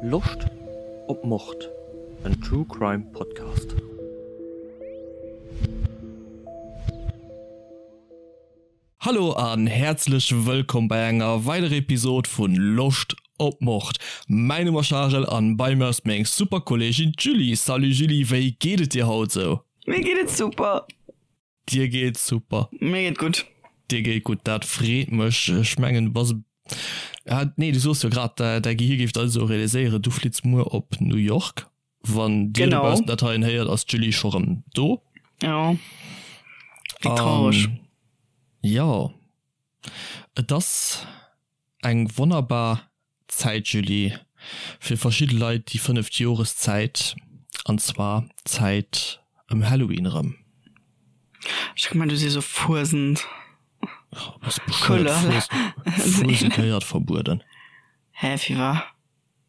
Loscht op Mord? En True Crime Podcast. Hallo an häerzlech wëllkomm bei enger weiderer Episod vun Loscht op Mord. Mäin Numm ass Charel an bei mir ass meng super Kolleegin d'Julie. Salut Julie, wéi geet et dir haut sou? Mir geet et super. Dir geet super. Mir geet gutt. Dir geet gutt, dat freet mech. Ech mengen du bass, ah nee, du soos jo grad, däi Gehir géif dat esou realiséieren, du flitts muer op New York. Wann dir dobaussen dat heien héiert, ass d'Julie scho rëm do. Jo, wéi traureg. Jo, et ass eng wonnerbar Zäit, Julie, fir verschidde Leit déi fënneft Joreszäit, an zwar d'Zäit ëm Halloween erëm. Ech hu gemengt, du sees och Fuesent. Bass bescheuert? Fuesent gehéiert verbueden. Hä, firwat?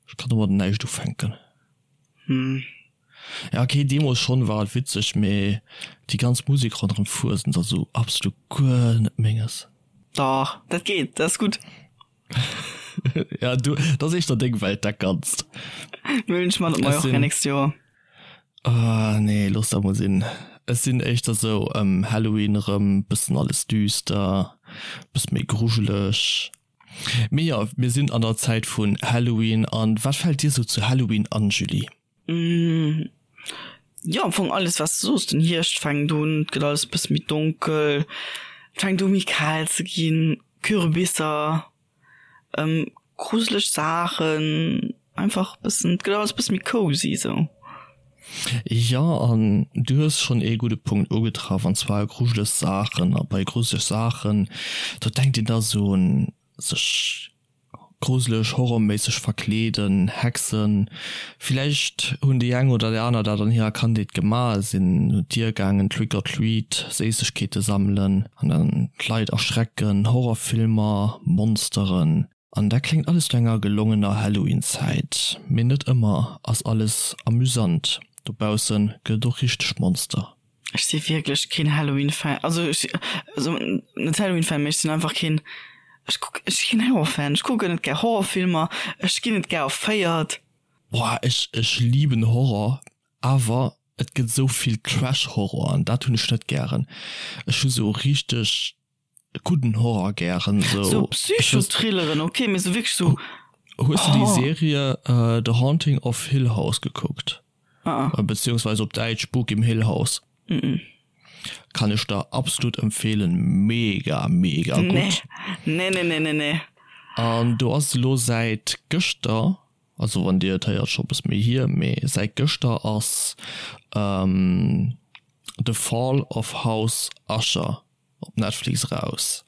Ech kann domadder näischt ufänken. Hm. Ja okay, deemols schon war et witzeg, mee déi ganz Musek ronderem Fuesent ass esou absolut guer net menges. Dach, dat geet, dat ass gutt. Ja du, dat ass éischter deng Welt dat Ganzt. Mir hunn ech mat op Mallorca nächst Joer. Ah nee, looss dat mol sinn. Ech sinn éischter sou ëm Halloween erëm, bëssen alles düster, bësse méi grujeleg. Mee jo, mir sinn an der Zäit vun Halloween. An wat fält dir sou zu Halloween an, Julie? Jo, am Fong alles wat s de soos. Den Hierscht fänkt un, et gëtt alles e bësse méi donkel, et fänkt u méi kal ze ginn, Kürbisser, gruseleg Saachen, einfach e bëssen, et gëtt alles e bësse méi cozy sou. Jo, an du hues schonn ee gudde Punkt ugetraff, an zwar grujeleg Saachen. A bei grujeleg Saachen, do denkt een da sou un sech gruseleg, horrorméisseg verkleeden, Hexen. Villäicht hunn déi eng oder déi aner dat an hirer Kandheet gemaach, sinn un d'Dier gaangen, Trick or treat, Séissegkeete sammelen an dann d'Leit erschrecken, Horrorfilmer, Monsteren. An dat kléngt alles no enger gelongener Halloween-Zäit, mee net ëmmer ass alles amüsant. Dobausse gëtt et och richteg Monster. Ech si wierklech keen Halloween-Fan, also ech, also net Halloween-Fan, mee ech sinn einfach keen, ech kuck, ech si keen Horror-Fan, ech kucken net gär Horrorfilmer, ech ginn net gär erféiert. Boah, ech, ech liben Horror, awer et gëtt esou vill Trash-Horror an dat hunn ech net gären. Ech hu sou richteg gudden Horror gären sou. Sou Psychothrilleren ok, mee sou wierklech sou. Hues de déi Serie The Haunting of Hill House gekuckt? Beziehungsweise op Däitsch Spuk im Hill House. Kann ech der absolut empfehlen, mega mega gutt. Nee nee nee nee nee. An do ass elo säit gëschter, also wann dir et héiert scho bësse méi hier, mee säit gëschter ass The Fall of House Usher op Netflix eraus.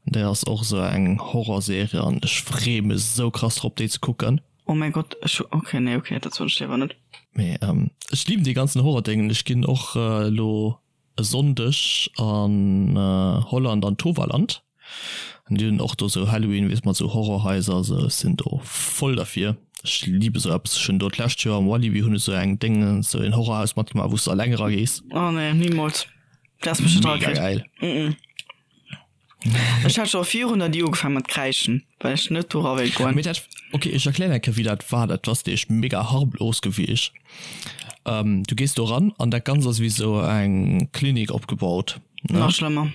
Déi ass och esou eng Horrorserie an ech free mech esou krass drop déi ze kucken. Oh mäi Gott, ech hu, ok, nee, ok, dat soen ech léiwer net. Mee ech liben dee ganzen Horrordéngen. Ech ginn och elo e Sonndeg an Holland an Toverland an déi hunn och do esou Halloween, weess mat esou Horrorhaiser a sou. Ech sinn do voll derfir. Ech libe sou eppes. Ech hunn do d'lescht Joer am Walibi hunn ech sou eng Déngen, sou een Horrorhaus matgemaach wou s de alleng eragees. Oh nee, nimools. Dat ass mech net Mega geil. Mm -mm. Ech hat scho virun der Di ugefaangen mat kräischen, well ech net dora wéilt goen. Mee dat, okay, ech erklären eng Kéier wéi dat war. Dat ass nämlech mega harmlos gewiescht. Ähm, du gees do ran an dat Ganzt ass wéi sou eng Klinik opgebaut, ne? Nach schlëmmer.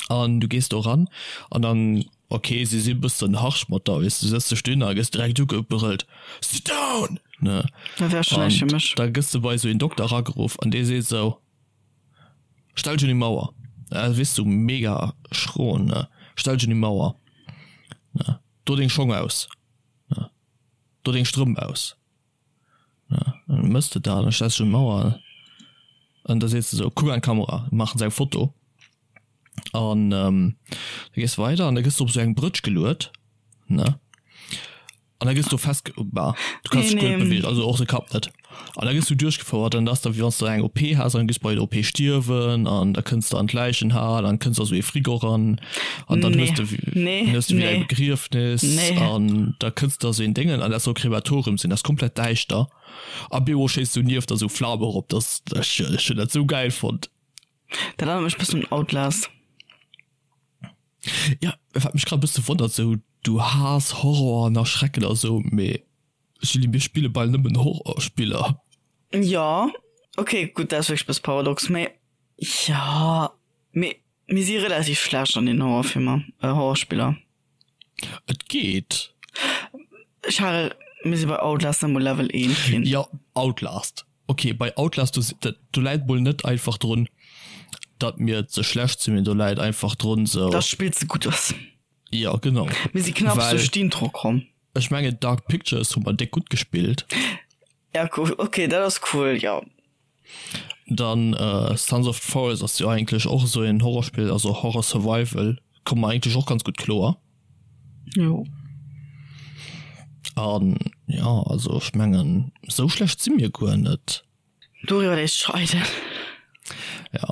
An du gees do ran an dann, okay, si si bëssen harsch mat der, weess du, sëtz dech dohinner a gëss direkt ugebrëllt, Sit down! Ne? Dat wär schon näischt fir mech. Da gëss de bei esou een Dokter erageruff an dee seet esou, Stell dech un déi Mauer. Äh, weess du, mega schro, ne? Stell dech un déi Mauer, ne? Do deng Schong aus, ne? Do deng Strëmp aus. Dann mëss de dat, dann stells du d'Mauer an da sees de sou, kuck an d'Kamera, maachen se eng Foto an da gees de weider an da gëss de op sou eng Brëtsch geluet, ne, an da gëss du fest, bah, du kanns dech guer net beweegen, also och de Kapp net, an da gëss du duerchgefouert an da ass da wéi wann s de eng OP has an gëss bei der OP stierwen an da kënns de an d'Läichenhal an kënns a sou ee Frigo eran an dann hues de hues de wéi eng Begriefnis an da kënns de a sou een Déngen an dat soll Krematorium sinn, dat ass komplett däischter a bemol schéisst sou nieft der sou Flam erop, dat ech ech hunn dat sou gäil fonnt. Dat erënnert mech bëssen un Outlast. Ja, wat mech grad e bësse wonnert, sou du haass Horror an Erschrecken a sou, mee. Julie, mir spille bal nëmmen Horrorspiller. Jo, ok, gutt, dat ass wierklech e bësse paradox, mee jo, mee mir si relativ schlecht an den Horrorfilmer, Horrorspiller. Et geet. Charel, mir si bei Outlast net mol Level 1 ginn. Jo, Outlast. Ok, bei Outlast, do, do läit mol net einfach drun, datt mir ze schlecht sinn, mee do läit einfach drun sou. Datt d'Spill ze gutt ass. Jo, genau. Mir si knapps duerch d'Intro komm. Ech mengen Dark Pictures hu mer déck gutt gespillt. Ja, cool. Ok, dat ass cool, jo. Dann Sons of the Forest ass jo eigentlech och esou een Horrorspill, also Horror Survival, komme mer eigentlech och ganz gutt kloer. Jo. An jo, also ech mengen esou schlecht si mir guer net. Doriwwer léisst scheiden. Ja,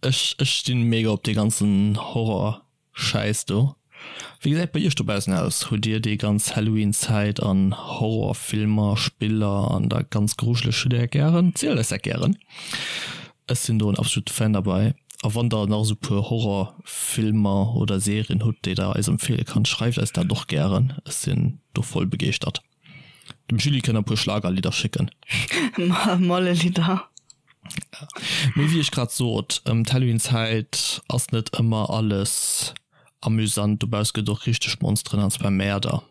ech ech stinn mega op dee ganzen Horror Schäiss do. Wéi gesäit bei iech dobaussen aus? Hutt dir déi ganz Halloween Zäit an Horrorfilmer, Spiller an dat ganz Grujeleg hutt dir dat gären? Zielt eis dat gären. Ech sinn do en absolute Fan derbei. A wann der nach esou puer Horrorfilmer oder Serien hutt déi der eis empfehle kannt, schreift eis dat och gären. Ech sinn do voll begeeschtert. Dem Julie kënnt der e puer Schlagerlidder schécken. Mollelidder. Mee wéi ech grad sot, ëm d'Halloween-Zäit ass net ëmmer alles amüsant. Dobauss gëtt och richteg Monsteren an zwar Mäerder.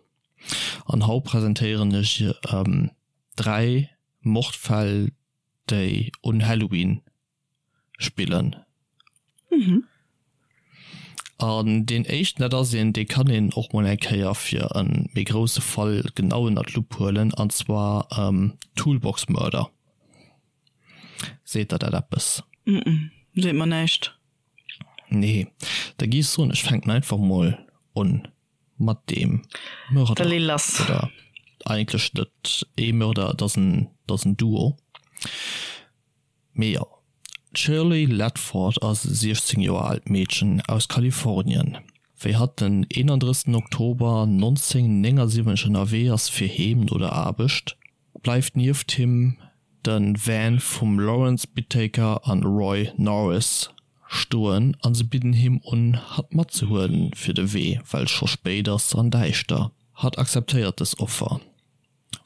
An haut presentéieren ech 3 Mordfäll, déi un Halloween spillen. Mhm. An deen éischten, dat ass een, dee kann een och mol eng Kéier fir e méi grousse Fall genau ënner d'Lupp huelen, an zwar Toolbox Murder. Seet der dat eppes? Mhm, seet mer näischt. Nee, da gi ech soen, ech fänken einfach mol un mat deem Mörder. Da lee lass. Oder eigentlech net ee Mörder, et ass en, et ass en Duo. Mee jo, d'Shirley Ledford ass e 16 Joer aalt Meedchen aus Kalifornien. Wéi hatt den 31 Oktober 1979 ënnerwee ass fir heem no der Aarbecht, bleift nieft him de Van vum Lawrence Bittaker an Roy Norris stoen a se bidden him un hatt matzehuelen fir de Wee, well scho spéit ass an däischter. Hatt akzeptéiert dës Offer.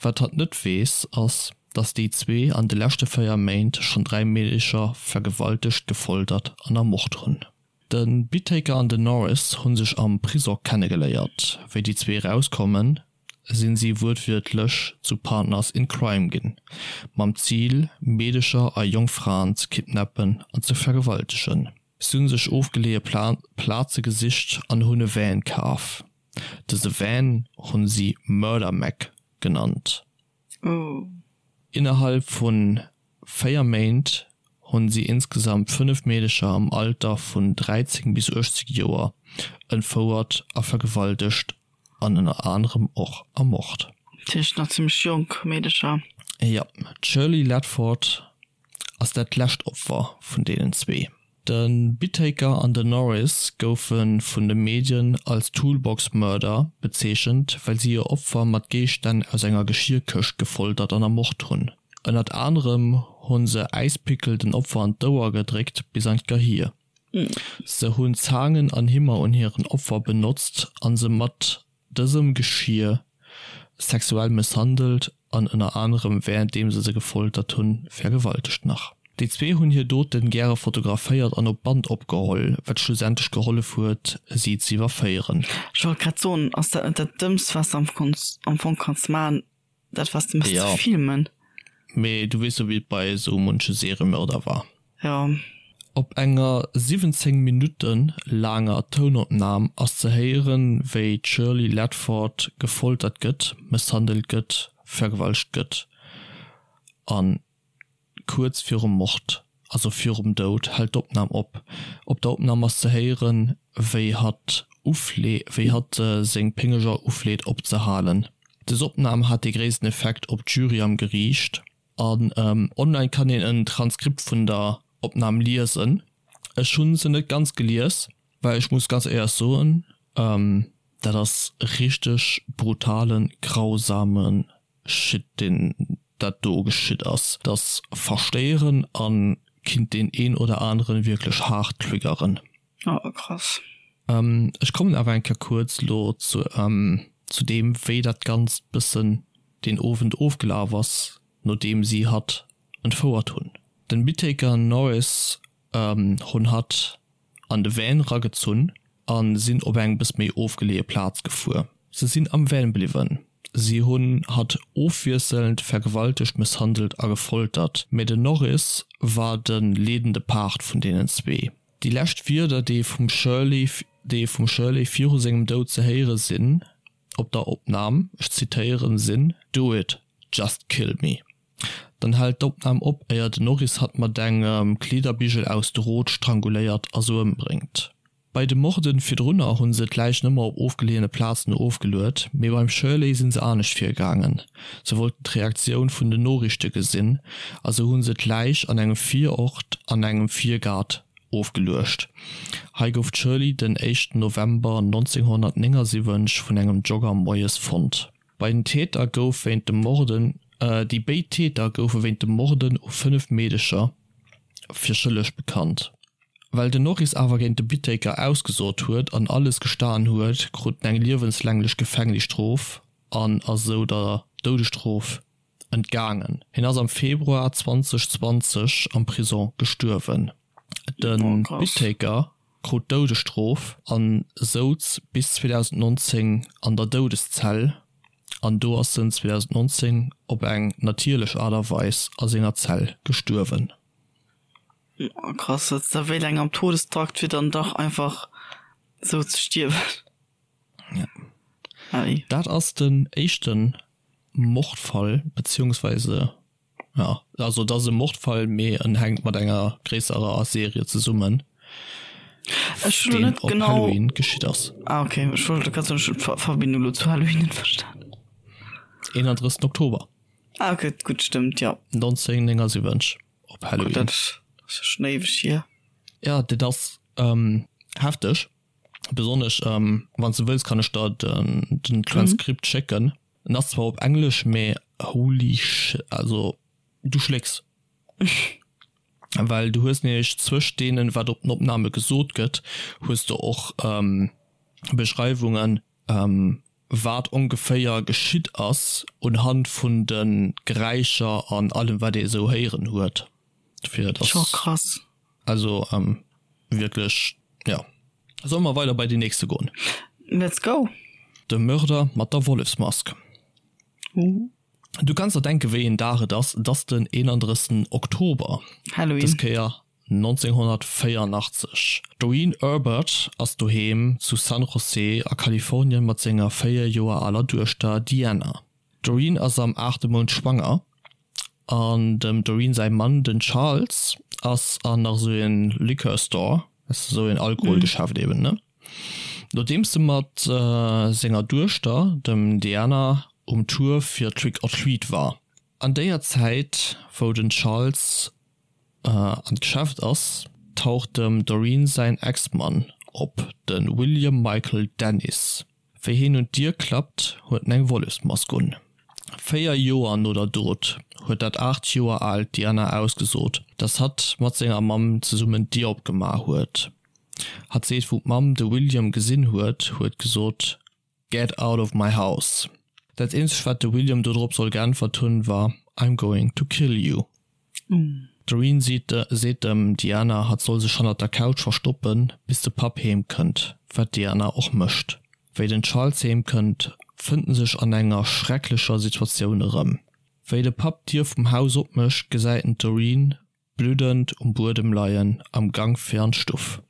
Wat hatt net weess, ass, dass déi zwee an de leschte 4 Méint schonn 3 Meedecher vergewaltegt, gefoltert an ermort hunn. De Bittaker an den Norris hu sech am Prisong kennegeléiert. Wéi déi zwee erauskommen, sinn si wuertwiertlech zu Partners in Crime ginn, mam Zil, Meedecher a jonk Fraen ze kidnappen an ze vergewaltegen. Si hu sech ofgeleeë Plaze gesicht an hunn e Van kaf. Dëse Van hunn si Murder Mac genannt. Innerhalb vun 4 Méint hunn si insgesamt 5 Meedecher am Alter vun 13 bis 18 Joer entfouert a vergewaltegt an ënner anerem och ermort. Dat heescht nach zimmlech jonk Meedecher. Jo, d'Shirley Ledford ass dat lescht Opfer vun deenen zwee. De Bittaker an den Norris goufe vun de Medien als Toolbox Murder bezeechent, well si hir Opfer mat Géigestänn aus enger Geschierkëscht gefoltert an ermort hunn. Ënnert anerem hu se Äispickel den Opfer an d'Ouer gedréckt bis an d'Gehir. Se hunn Zaangen an Himmer un hiren Opfer benotzt a se mat dësem Geschir sexuell mësshandelt an ënner anerem wärenddeem se se gefoltert hunn, vergewaltegt. Nach déi zwee hunn hir Doten gäre fotograféiert an op Band opgeholl, wat schlussendlech gehollef huet, si ze iwwerféieren. Ech wollt grad soen, ass dat net dat Dëmmst, wat s de am Fong kanns maachen, Dat was de ja. ze filmen. Mee du weess jo wéi et bei esou munche Seriemörder war. Ja. Op enger 17 Minutte laanger Tounopnam ass ze héieren, wéi d'Shirley Ledford gefoltert gëtt, mësshandelt gëtt, vergewaltegt gëtt an Kuerz virum Mord, also virum Doud, hält d'Opnam op. Op der Opnam ass ze héieren, wéi hatt uflee, wéi hatt seng Péngeger ufleet opzehalen. Des Opnam hat dee gréissten Effekt op d'Jury am Geriicht. An online kann een en Transkript vun der Opnam liesen. Ech hunn se net ganz gelies, well ech muss ganz éierlech soen, dat ass richteg brutalen, grausame Shit deen dat do geschitt ass, dat ass verstéieren an kinnt deen een oder aneren wierklech haart triggeren. Oh krass. Ech kommen awer eng Kéier kuerz lo zu zu deem wéi dat ganzt bëssen. deen Owend ofgelaf ass, nodeem si hatt entfouert hunn. Den Bittaker an Norris hunn hatt an de Van ragezunn a sinn op eng bëss méi ofgeleeë Plaz gefuer. Se sinn am Van bliwwen. Si hunn hatt ofwiesselnd vergewaltegt, mësshandelt a gefoltert, mä den Norris war de leedende Part vun deenen zwee. Déi lescht Wierder, déi vum Shirley, déi vum Shirley viru sengem Doud ze héiere sinn op der Opnam, ech zitéieren, sinn, Do it, just kill me. Dann hält d'Opnam op, éier den Norris hatt mat engem Kleederbigel aus Drot stranguléiert a sou ëmbréngt. Bei de Morden virdrunner hunn se d'Läichen ëmmer op ofgeleeëne Plazen ofgeluet, mee beim Shirley sinn se anescht virgaangen. Se wollten d'Reaktioun vun den Noriichte gesinn a sou hunn se d'Läich an engem Virort an engem Virgaart ofgeluecht. Hei gouf d'Shirley den éischten November 1979 vun engem Jogger moies fonnt. Bei den Täter gouf wéint dem Morden Déi béid Täter goufe wéint dem Morden u 5 Meedecher fir schëlleg bekannt. Well den Norris awer géint de Bittaker ausgesot huet an alles gestan huet, krut en eng liewenslänglech Gefängnisstrof an ass esou der Doudesstrof entgaangen. Hien ass am Februar 2020 am Prisong gestuerwen. De Bittaker krut d'Doudesstrof a souz bis 2019 an der Doudeszell an do ass en 2019 op eng natierlech Aart a Weis a senger Zell gestuerwen. Oh krass, dat da wéi laang am Todestrakt fir dann dach einfach sou ze stierwen. Ja. Ei. Dat ass den éischte Mordfall, beziehungsweise ja, also et ass e Mordfall, mee en hänkt mat enger gréisserer Serie zesummen, Ech hunn elo deen net op genau. Halloween geschitt ass. Ah okay, ech wollt grad soen, ech hunn d'Verbindung elo zu Halloween net verstan. 31. Oktober. Ah okay, gutt, stëmmt, jo. 1979. Op Halloween. Dat ass jo schon éiweg hier. Ja, dat ass hefteg. Besonnesch wann s de wëlls, kann ech der den Transkript schécken. En ass zwar op Englesch, mee holy sh, also du schlécks. Well du hues nämlech zwëscht deenen, wat op den Opname gesot gëtt, hues de och Beschreiwungen, wat ongeféier geschitt ass unhand vun de Geräischer an allem wat ee esou héieren huet. Dofir et ass. Krass. Also wierklech jo. Solle mer weider bei deen nächste goen? Let's go! De Mörder mat der Wollefsmask. Du kanns der denke wéi een Dag et ass, et ass den 31 Oktober, Halloween. dës Kéier 1984. D'Doreen Erbert ass doheem zu San José a Kalifornien mat senger 4 Joer aler Duechter Deanna. D'Doreen ass am aachte Mount schwanger an dem Doreen säi Mann, den Charles, ass an nach esou een Liquor Store, esou een Alkoholgeschäft eben, ne? Nodeems e mat senger Duechter, dem Deanna, um Tour fir Trick or Treat war. An déier Zäit, wou den Charles an d'Geschäft ass, taucht dem Doreen säin Ex-Mann op, de William Michael Dennis. Wéi hien un d'Dier klappt, huet en eng Wollefsmask un. 4 Joer no der Dot huet dat 8 Joer aalt Diana ausgesot, dass hatt mat senger Mamm zesummen d'Dier opgemaach huet. Hatt seet, wou d'Mamm de William gesinn huet, huet gesot, Get out of my house. Dat eenzegt wat de William dodrop soll geäntwert hunn war I'm going to kill you. D'Doreen seet dem Diana hatt soll sech hannert der Couch verstoppen bis de Papp heem kënnt, wat d'Diana och mécht. Wéi den Charles heem kënnt fënnt en sech an enger schrecklecher Situatioun erëm. Wéi de Papp d'Dier vum Haus opmécht gesäit en d'Doreen Bluddend um Buedem leien, am Gank fir an d'Stuff,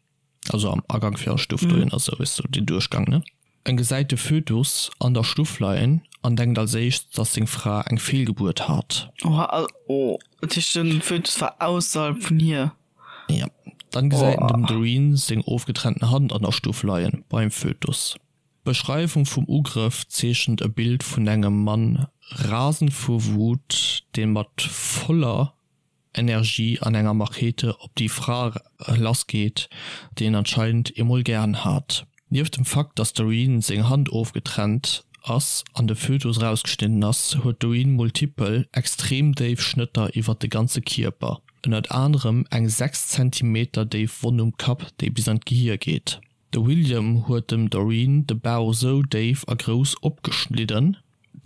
also am Agank fir an d'Stuff dohin, also weess du, deen Duerchgang, ne? En gesäit de Fötus an der Stuff leien an denkt als éischt, dass seng Fra eng Feelgebuert hat. Oha, oh, dat heescht den Fötus war ausserhalb vun hir? Ja. Dann gesäit en dem Doreen seng ofgetrennten Hand an der Stuff leien, beim Fötus. D'Beschreiwung vum Ugrëff zeechent e Bild vun engem Mann rasend vu Wut, dee mat voller Energie an enger Machete op déi Fra lassgeet, déi en anscheinend emol gären hat. Nieft dem Fakt, dass d'Doreen seng Hand ofgetrennt ass an de Fötus erausgeschnidden ass, huet d'Doreen multipel, extrem déif Schnëtter iwwert de ganze Kierper, ënnert anerem eng 6 Zentimeter déif Wonn um Kapp, déi bis an d'Gehier geet. De William huet dem Doreen de Bauch sou déif a grouss opgeschnidden,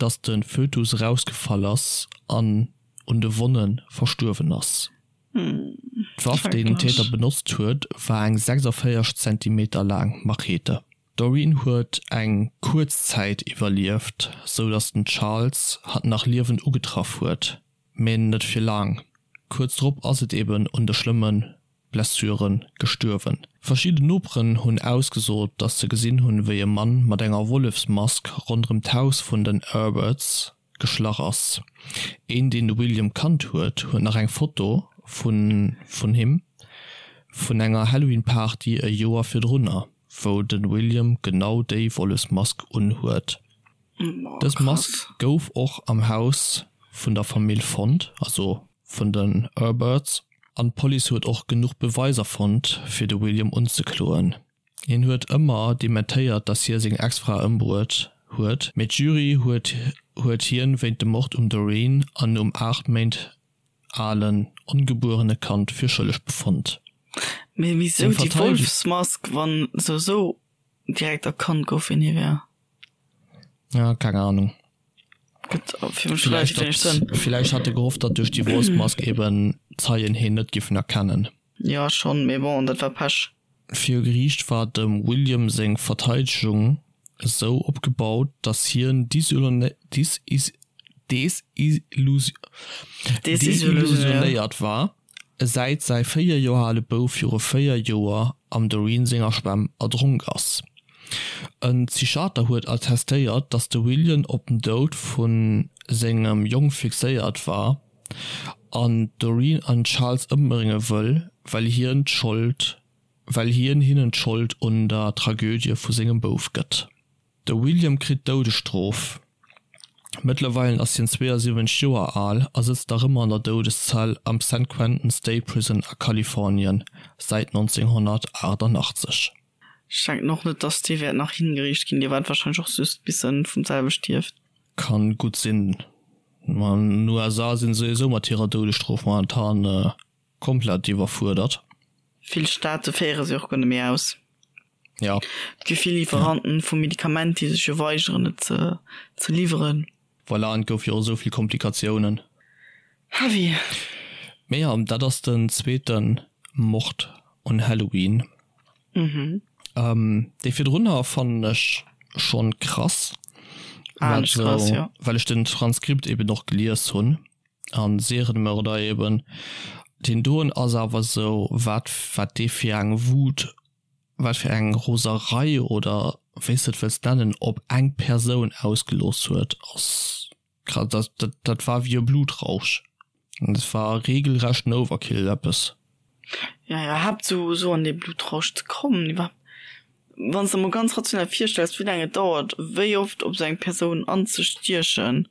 datt de Fötus erausgefall ass an un de Wonne verstuerwen ass. D'Waff, déi den Täter benotzt huet, war eng 46 Zentimeter laang Machete. D'Doreen huet eng kuerz Zäit iwwerlieft, sou datt den Charles hatt nach liewend ugetraff huet, mä net fir laang. Kuerz drop ass et eben un de schlëmme Blessure gestuerwen. Verschidden Noperen hunn ausgesot, datt se gesinn hunn, wéi e Mann mat enger Wollefsmask ronderëm d'Haus vun den Herberts geschlach ass. Een, deen de William kannt huet, huet nach eng Foto vun vun him vun enger Halloween-Party e Joer virdrunner, wou de William genau déi Wollefsmask unhuet. Dës Mask gouf och am Haus vun der Famill fonnt, also vun den Herberts, an d'Police huet och genuch Beweiser fonnt, fir de William unzekloen. Hien huet ëmmer dementéiert, datt hie seng Ex-Fra ëmbruet huet, mee d'Jury huet huet hien wéint dem Mord um Doreen an um 8 Méint alen ongebuerene Kand fir schëlleg befonnt. Mee wisou déi Wolfsmask, wann souwisou direkt erkannt gouf, wien hie wär? Ja, keng Ahnung. Gëtt fir mech relativ wéineg Sënn. Villäicht hat e gehofft, datt duerch déi Wolfsmask eben d'Zeien hien net giffen erkennen. Jo schonn, mee bon, dat war Pech. Viru Geriicht war dem William seng Verteidegung esou opgebaut, datt hien desillusionéiert war, säit säi 4 Joer ale Bouf viru 4 Joer am Doreen senger Schwämm erdronk ass. E Psychiater huet attestéiert, datt de William op den Doud vu sengem Jong fixéiert war an d'Doreen an Charles ëmbrénge wëll, well hien d'Schold well hien hinnen d'Schold un der Tragödie vu sengem Bouf gëtt. De William kritt d'Doudesstrof. Mëttlerweilen ass hien 72 Joer al a sëtzt nach ëmmer an der Doudeszell am San Quentin State Prison a Kalifornien, säit 1988. Ech denken och net dass dee wäert nach hingeriicht ginn, dee waart wahrscheinlech och just bis en vum selwe stierft. Kann gutt sinn. Ma an den USA sinn se souwisou mat hirer Doudesstrof momentan komplett iwwerfuerdert. Vill Staate féiere se och guer net méi aus. Ja. Et gi vill Lieferanten vu Medikament, déi sech jo weigeren et ze ze liwweren. Voilà, an et gouf jo och esou vill Komplikatiounen. Heavy. Mee jo, dat ass den zweete Mord un Halloween. Mhm. Dee virdrunner fannen ech schonn krass, Ah, nicht krass, ja. well ech den Transkript eben och gelies hunn an Serienmörder eben. Deen doen ass awer sou, wat wat dee fir eng Wut, wat fir eng Roserei oder wéi s de et wëlls nennen, op eng Persoun ausgelooss huet, ass krass. Dat dat dat war wéi e Blutrausch. Dat war regelrechten Overkill eppes. Ja, iwwerhaapt sou sou an dee Blutrausch ze kommen, iwwerhaapt wann s de mol ganz rational virstells, wéi laang et dauert, wéi oft op sou eng Persoun anzestiechen,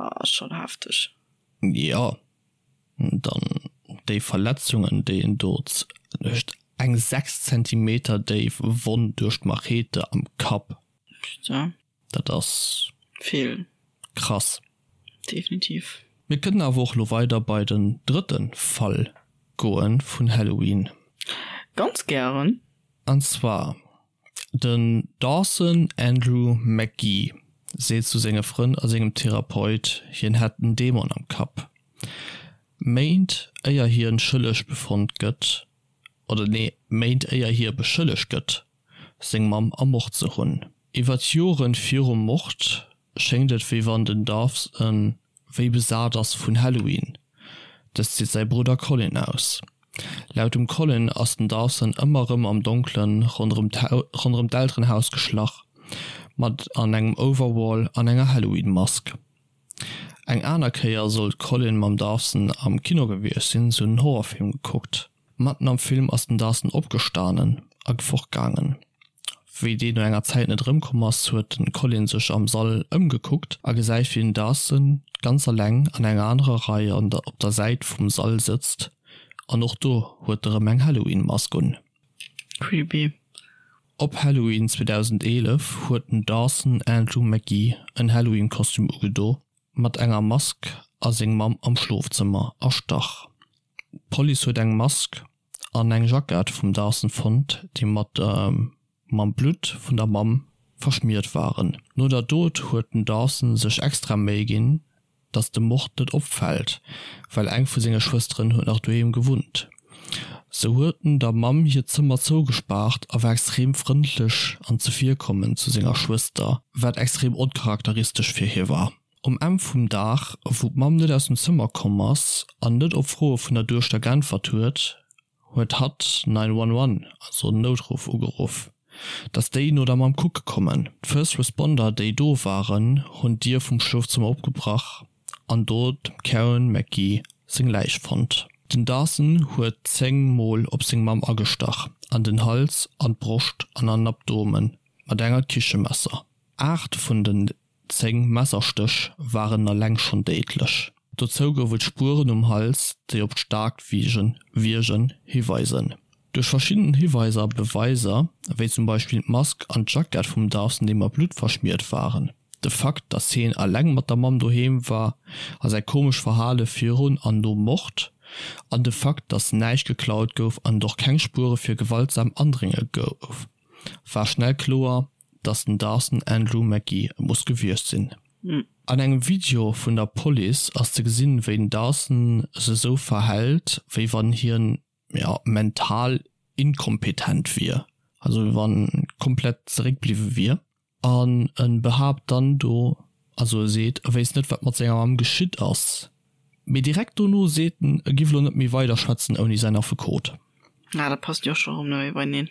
ass schonn hefteg. Jo, dann déi Verletzungen, déi en do huet, eng 6 Zentimeter déif Wonn duerch d'Machete am Kapp. Putain. Dat ass vill. Krass. Definitiv. Mir kënnen awer och lo weider bei den drëtten Fall goen vun Halloween. Ganz gären. An zwar den Dawson Andrew McGee seet zu senge Frënn a sengem Therapeut hien hätt en Dämon am Kapp. Méint éier hien schëlleg befonnt gëtt, oder nee Méint éier hie beschëllegt gëtt seng Mamm ermort ze hunn. Iwwer d'Joren virum Mord schéngt et wéi wann den Dawson wéi besat ass vun Halloween. Dëst seet säi Brudder Colin aus. Laut dem Colin ass den Dawson ëmmer rëm am Donkelen ronderëm d'Elterenhaus geschlach, mat an engem Overall an enger Halloween-Mask. Eng aner Kéier soll d'Colin mam Dawson am Kino gewiescht sinn, se hunn en Horrorfilm gekuckt. Matten am Film ass den Dawson opgestanen a fortgaangen. Wéi deen no enger Zäit net erëmkomm ass, huet den Colin sech am Sall ëmgekuckt a gesäit wéi den Dawson ganz alleng an enger anerer Rei an der op der Säit vum Sall sëtzt an och do huet e rëm eng Halloween Mask un. Creepy. Op Halloween 2011 huet den Dawson Andrew McGee en Halloween Kostüm ugedo mat enger Mask a seng Mamm am Schlofzëmmer erstach. D'Police huet eng Mask an eng Jackett vum Dawson fonnt, déi mat mam Blutt vun der Mamm. verschmiert waren. No der Dot huet den Dawson sech extra Méi ginn, dass de Mord net opfält, well eng vu senge Schwësteren huet nach doheem gewunnt. Sou huet en der Mamm hiert Zëmmer zougespaart a war extrem frëndlech an zevirkommend zu senger Schwëster, wat extrem oncharakteristesch fir hie war. Um Enn vum Dag, wou d'Mamm net aus dem Zëmmer komm ass an net op Froe vun der Duechter geäntwert huet, huet hatt 911, also den Noutruff, ugeruff, dass déi no der Mamm kucke kommen. D'First Responder, déi do waren, hunn d'Dier vum Schlofzëmmer opgebrach an do dem Karen McGee seng Läich fonnt. Den Dawson huet 10 Mol op seng Mamm agestach, an den Hals, an d'Broscht an an den Abdomen mat enger Kichemesser. 8 vun den 10 Messerstéch waren eleng schonn déidlech. Dozou gouf et Spueren um Hals, déi op d'staarkt Wiergen hiweisen. Duerch verschidden Hiweiser a Beweiser, wéi zum Beispill d'Mask an d'Jackett vum Dawson, déi mat Blutt verschmiert waren, de Fakt, datt hien eleng mat der Mamm doheem war a säi komescht Verhale virun an nom Mord, an de Fakt, datt näischt geklaut gouf an et och keng Spuere fir gewaltsam Andrénge gouf, war schnell kloer, dass den Dawson Andrew McGee et muss gewiescht sinn. An engem Video vun der Police ass ze gesinn, wéi den Dawson sech esou verhält, wéi wann hien, jo, mental inkompetent wier, also wéi wann komplett zeréckbliwwe wier. An e behaapt dann do, also e seet, e wéisst net, wat mat senger Mamm geschitt ass, mee direkt dono seet en, e giff elo net méi weiderschwätzen ouni säin Affekot. Ah, dat passt jo och scho rëm net méi beieneen.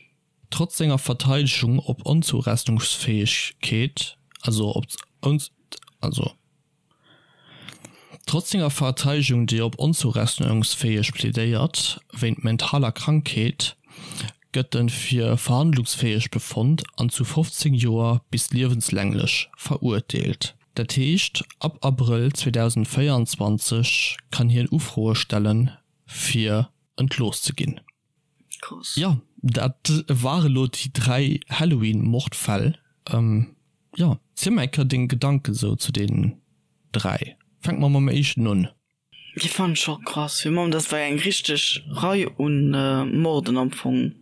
Trotz senger Verteidegung op Onzourechnungsfäegkeet, also op also trotz senger Verteidegung, déi op onzourechnungsfäeg plädéiert, wéint mentaler Krankheet, gëtt en fir verhandlungsfäeg befonnt an zu 15 Joer bis liewenslänglech verurteelt. Dat heescht, ab Abrëll 2024 kann hien Ufroe stellen, fir entlooss ze ginn. Krass. Jo, dat ware lo déi 3 Halloween-Mordfäll. Jo, ziel mer eng Kéier deng Gedanken sou zu deenen 3. Fänke mer mam éischten un. Déi fannen ech och krass. Fir mam, dat war eng richteg Rei un Morden am Fong.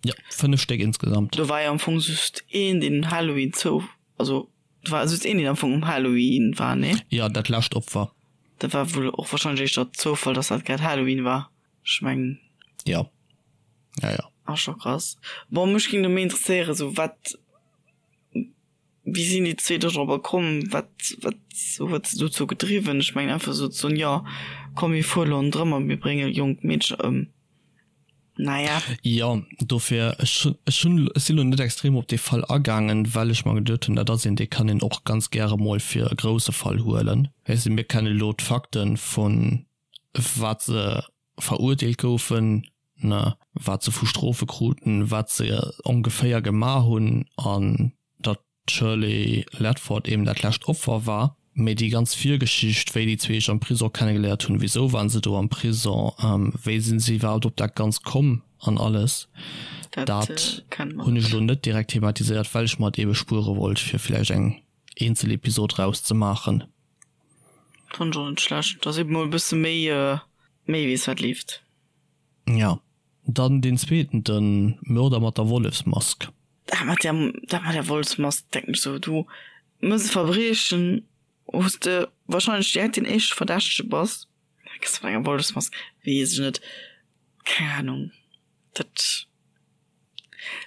Jo, 5 Stéck insgesamt. Do war jo am Fong just een, deen un Halloween zou, also do war just een, deen am Fong um Halloween war, nee? Jo, dat lescht Opfer. Dat war wuel och wahrscheinlech éischter Zoufall, dass dat grad Halloween war. Ech mengen. Jo. Ja, ja. Ass scho krass. Bon, mech géing do méi interesséieren, sou wat, wéi sinn déi zwee do drobber komm, wat, wat huet se dozou gedriwwen? Ech mengen einfach sou ze soen, jo komm mir fuere lo ronderëm a mir brénge jonk Meedercher ëm. Naja. Jo, dofir, ech hunn, ech hunn, ech sinn lo net extrem op dee Fall agaangen, well ech mer geduet hunn, dat ass een, dee kann een och ganz gäre mol fir e grousse Fall huelen. Weess de, mir kenne lo d'Fakten vun wat se verurteelt goufen, ne, wat se vu Strofe kruten, wat se ongeféier gemaach hunn an datt d'Shirley Ledford eben dat lescht Opfer war. Mee déi ganz Virgeschicht, wéi déi zwee sech am Prisong kennegeléiert hunn, wisou waren se do am Prisong, wéi sinn se iwwerhaapt op dat Ganzt komm an alles, dat hunn ech elo net direkt thematiséiert, well ech mer et ebe spuere wollt, fir vläicht eng eenzel Episod rauszemaachen. Fand ech och net schlecht, dass eben mol e bësse méi méi weess wat leeft. Ja, dann deen zweeten, den Mörder mat der Wollefsmask. Dat mat der dat mat der Wollefsmask denken ech sou, du mëss e Verbriechen wous de wahrscheinlech direkt deen éischte Verdächtege bass, da gëss de mat enger Wollefsmask, weess ech net, keng Ahnung, dat.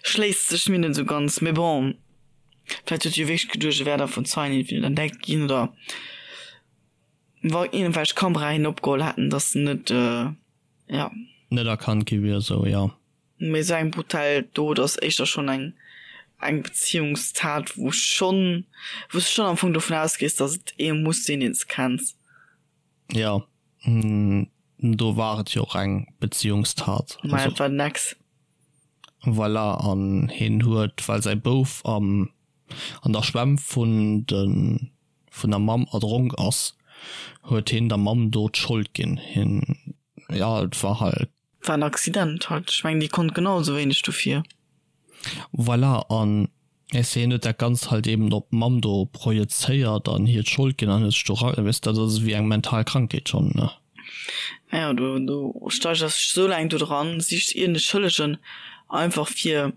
Schléisst sech mir net sou ganz, mee bon, vläit huet e jo wierklech geduecht, e wär da vun Zeien entweder entdeckt ginn oder wa iergendwelch Kameraen hien opgeholl hätten, dass en net, jo. Net erkannt gi wier, sou, jo. Mee sou eng brutal Dot ass éischter schonn eng eng Beziehungstat, wou schonn, wou s de schonn am Fong dovun ausgees, dass et ee muss sinn, deen s de kenns. Jo, do war et jo och eng Beziehungstat. Mä et war den Ex. Voilà, an hien huet, well säi Bouf am an der Schwämm vun de vun der Mamm erdronk ass, huet hien der Mamm do d'Schold ginn. Hien, jo, et war halt. War en Accident halt. Ech mengen, déi konnt genau esou wéineg dofir. Voilà, an weess de, hien huet dat Ganzt halt eben op d'Mamm do projezéiert an hir d'Schold ginn an huet sech do ra, weess de, dat ass ewéi eng mental Krankheet schonn, ne? Ja, du, du steigerst dech esou laang do dran, sichs iergend e Schëllegen, einfach fir.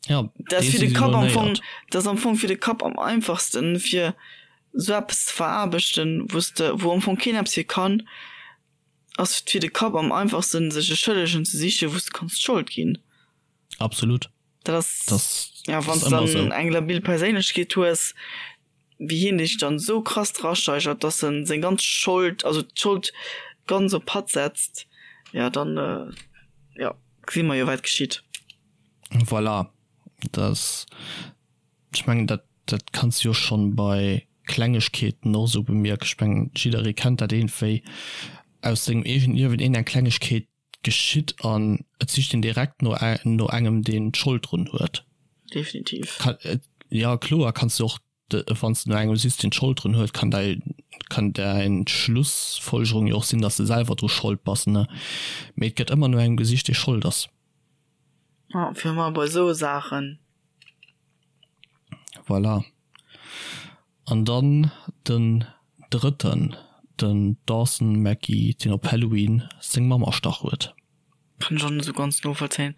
Ja, Dat ass fir de Kapp am Fong, dat ass am Fong fir de Kapp am einfachsten, fir sou eppes ze veraarbechten, wou s de, wou am Fong keen eppes fir kann, ass et fir de Kapp am einfachsten, sech e Schëllegen ze sichen, wou s de kanns d'Schold ginn. Absolut. Dat ass, ja, wann s dann eng labil Perséinlechkeet hues, wéi hien dech dann esou krass drasteigert, dass en seng ganz Schold, also d'Schold ganz op hatt setzt, ja dann, jo, gesi mer jo wat geschitt. Voilà, dat, ech mengen dat, dat kanns de jo schonn bei Klengegkeeten och esou bemierken. Ech mengen jidderee kennt dat iergendwéi aus sengem eegenen Liewen, iergendeng Klengegkeet geschitt an et sicht een direkt no no engem deen d'Schold drun huet. Definitiv. Jo kloer kanns du och wann s de no engem sichs deen d'Schold drun huet, kann däi kann däin Schlussfolgerung jo och sinn, datt s de selwer dru Schold bass ne. Mee et gëtt ëmmer no engem gesicht dee Schold ass. Jo fir ëmmer bei esou Saachen. Voilà. An dann den drëtten, den Dawson McGee, deen op Halloween seng Mamm erstach huet. Kann ech och net esou ganz novollzéien.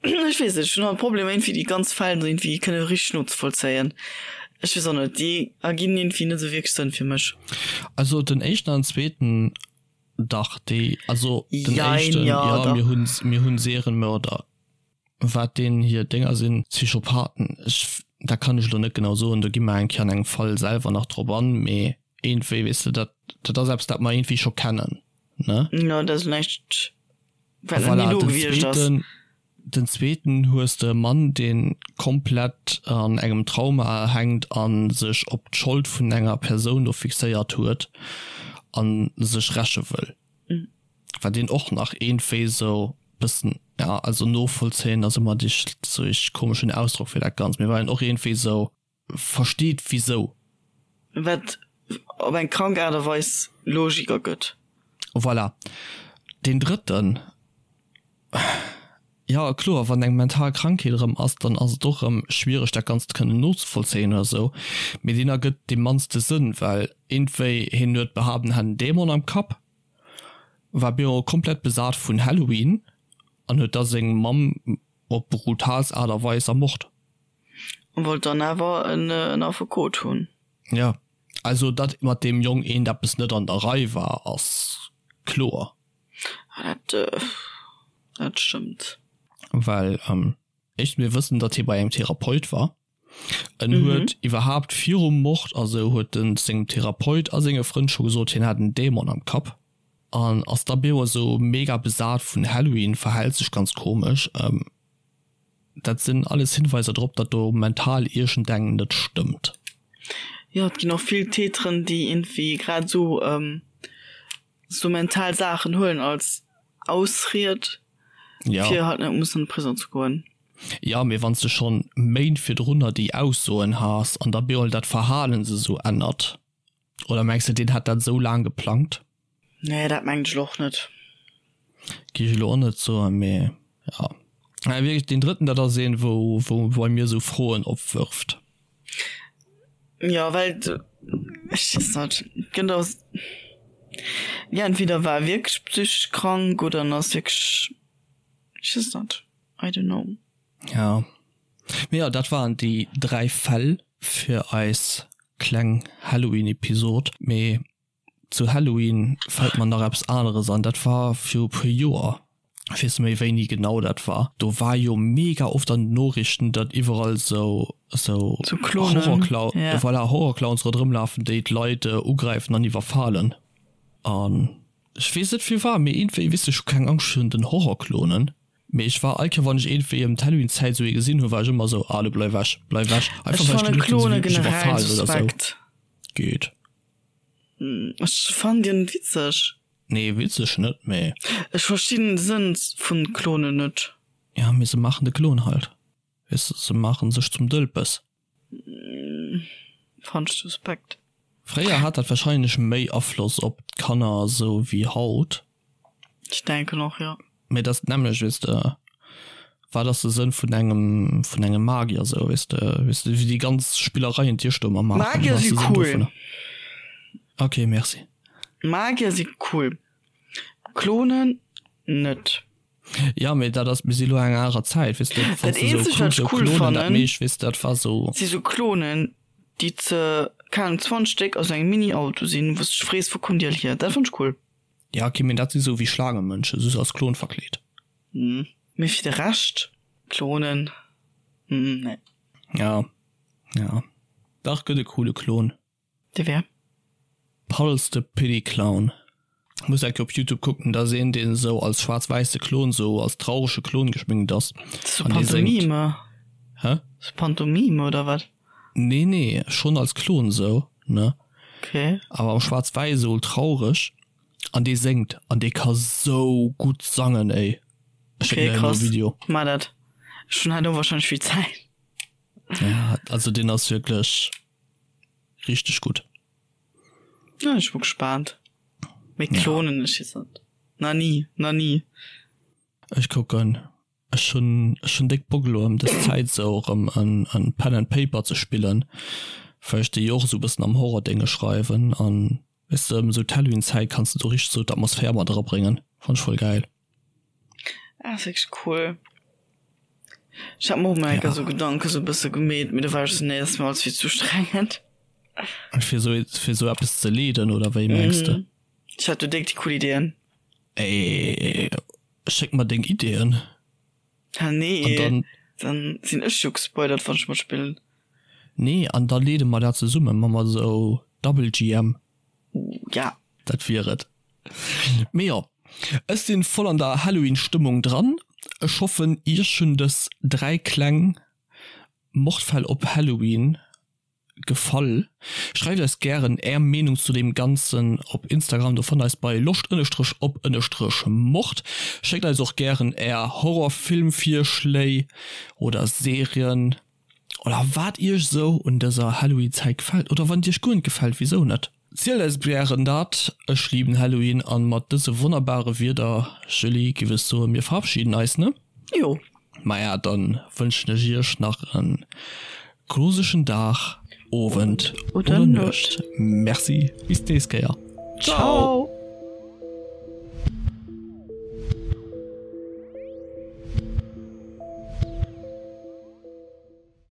Ech weess net, ech hunn halt Problemer iergendwéi déi ganz Fäll esou iergendwéi kënne richteg nozevollzéien. Ech weess och net, déi erginn iergendwéi net esou wierklech Sënn fir mech. Also den éischten an zweeten, dach déi, also den éischten, jo, mir hunn, mir hunn Serienmörder. Wat deen hir Dénger sinn, Psychopathen, ech, dat kann ech elo net genau soen, do gi mer eng Kéier an engem Fall selwer nach drop an, mee iergendwéi, weess de, dat, dat ass eppes, dat mer iergendwéi scho kennen, ne? Jo, dat ass näischt, wat nach ni do gewiescht ass. Voilà, den zweeten, den zweeten hues de e Mann, dee komplett an engem Trauma hänkt a sech op d'Schold vun enger Persoun do fixéiert huet a sech räche wëll. Wat een och nach iergendwéi esou bëssen, ja, also novollzéien ass ëmmer dee sou ee komeschen Ausdrock fir dat Ganzt, mee wat een och iergendwéi esou versteet wisou. Wat op eng krank Aart a Weis Logik ergëtt. Voilà. Deen drëtten, Jo, kloer, wann eng mental Krankheet erëm ass, dann ass et och erëm schwiereg dat Ganzt kënnen nozevollzéien oder esou, mee deen ergëtt dee mannste Sënn, well iergendwéi hien huet behaapt en hätt en Dämon am Kapp, war bemol komplett besat vun Halloween an huet da seng Mamm op brutaalst Aart a Weis ermort. An wollt dann awer en Affekot hunn. Jo, also datt mat deem Jong eent eppes net an der Rei war, ass kloer. Ah, dat, dat stëmmt. Well éischt mir wëssen, datt hie bei engem Therapeut war. En huet iwwerhaapt virum Mord a sou huet en sengem Therapeut a senge Frënn scho gesot, hien hätt en Dämon am Kapp. An ass da bemol sou mega besat vun Halloween, verhält sech ganz komesch. Dat sinn alles Hinweiser drop, datt do mental iergendeng net stëmmt. Jo, et ginn och vill Täteren, déi iergendwéi grad esou sou mental Saachen huelen als Ausried, ja. fir halt net mussen an de Prison ze goen. Ja, mee wann s de schonn Méint virdrunner déi Aussoen has an da bemol dat Verhalen sech sou ännert, oder mengs de deen hat dat sou laang geplangt? Nee, dat mengen ech elo och net. Gi ech elo och net soen, mee ja. Mä wierklech deen drëtten, dat ass een, wou, wou bei mir sou Froen opwërft. Jo, well ech weess net, et gëtt och, jo entweder war e wierklech psychesch krank oder en ass wierklech, ech weess net, I don't know. Ja, mee jo, dat waren déi 3 Fäll fir eis kleng Halloween-Episod. Mee Zu Halloween fällt mer nach eppes aneres an, dat war viru puer Joer, ech weess net méi wéini genau dat war, do war jo mega oft an den Noriichten, datt iwwerall sou sou Horrorclown, voilà, Horrorclowns ronderëm lafen, déi d'Leit ugräifen an iwwerfalen. An ech weess net firwat, mee iergendwéi, weess de, ech hu keng Angscht virun den Horrorclonen, mee ech war all Kéier wann ech iergendwéi ëm d'Halloween-Zäit sou ee gesinn hunn, war ech ëmmer sou, ah lo bleif ewech, bleif ewech, einfach well ech geduecht hunn, se wéilt mech iwwerfalen oder sou. Geet. Ech fannen déi net witzeg. Nee witzeg net, mee. Ech verstinn den Sënn vun Klonen net. Ja mee se maachen de Klon halt, weess de, se maachen sech zum Dëlpes. Fannen ech suspekt. Fréier hat dat wahrscheinlech méi Afloss op d'Kanner esou wéi haut. Ech denken och, jo. Mee dat ass d'nämmlecht, weess de, wat ass de Sënn vun engem, vun engem Magier esou, weess de, weess de, wéi déi ganz Spillereien déi ech do ëmmer maachen, Magier wat ass si de Sënn cool. dovunner? Ok, merci. Magier si cool, Klonen net. Ja, mee dat ass, mir si lo eng anerer Zäit, weess de, wann s de esou kucks, esou Klonen, dat meescht, weess de, dat war esou. Si sou Klonen, déi ze, keng Ahnung, 20 Stéck a sou engem Mini-Auto sinn, wou s de dech frees, wou kommen déi all hier? Dat fannt ech cool. Ja, ok, mee dat si sou wéi Schlaangemënschen, just als Klon verkleet. Mee fir de Rescht, Klonen, nee. Ja, ja. Dach, gëtt e coole Klon. Dee wär? Puddles the Pity Clown. Muss enke op Youtube kucken, dat ass een deen esou als schwaarz-wäisse Klon, esou als traurege Klon geschminkt ass. Sou Pantomime? Hä? Sou Pantomime oder wat? Nee nee, schonn als Klon esou, ne? Okay. Awer am schwaarz-wäiss esou traureg an dee séngt an dee ka sou gutt sangen ey. Ech schécken der emol e Video. Okay krass, maach dat. Ech hunn herno wahrscheinlech vill Zäit. Ja, also deen ass wierklech. Richteg gutt. Ja, ech bu gespaant. Mee Klonen, ech weess net. Na ni, na ni. Ech kucken. Ech hunn, ech hunn déck Bock elo ëm dës Zäit esou erëm en, en Pen and Paper ze spillen, well ech déi jo och esou e bëssen am Horror-Dénge schreiwen an weess de, ëm esou d'Halloween-Zäit kanns de do richteg esou d'Atmosphär mat erabréngen. Fann ech voll gäil. Ah, ass wierklech cool. Ech hat mer och mol eng Kéier sou Gedanke sou bësse gemeet, mee do war ech sou, nee, dat ass mir alles vill ze ustrengend. Fir sou, fir sou eppes ze leeden, oder wéi mengs de? Ech hat do déck déi cool Ideeën. Ey, schéck mer deng Ideeën. Ha nee, an dann, dann sinn ech jo gespoilert, wann ech matspillen. Nee, an da leede mer dat zesummen, ma mer sou Double GM. Ja. Dat wier et. Mee jo, ech sinn voll an der Halloween Stëmmung dran. Ech hoffen iech hunn dës 3 kleng Mordfäll op Halloween gefall. Schreift eis gären är Meenung zu deem ganzen op Instagram, do fannt eis bei loscht-op-mord. Schéckt eis och gären är Horrorfilmvirschléi oder Serien oder wat iech esou un dëser Halloween Zäit gefält oder wann et iech guer net gefält, wisou net? Zielt eis gären dat. Ech liben Halloween an mat dëse wonnerbare Wierder, Julie, giff ech soen, mir verabschieden eis, ne? Jo. Maja, dann wënschen ech iech nach en gruseschen Dag, Owend oder Nuecht. Merci, bis d'nächst Kéier. Ciao.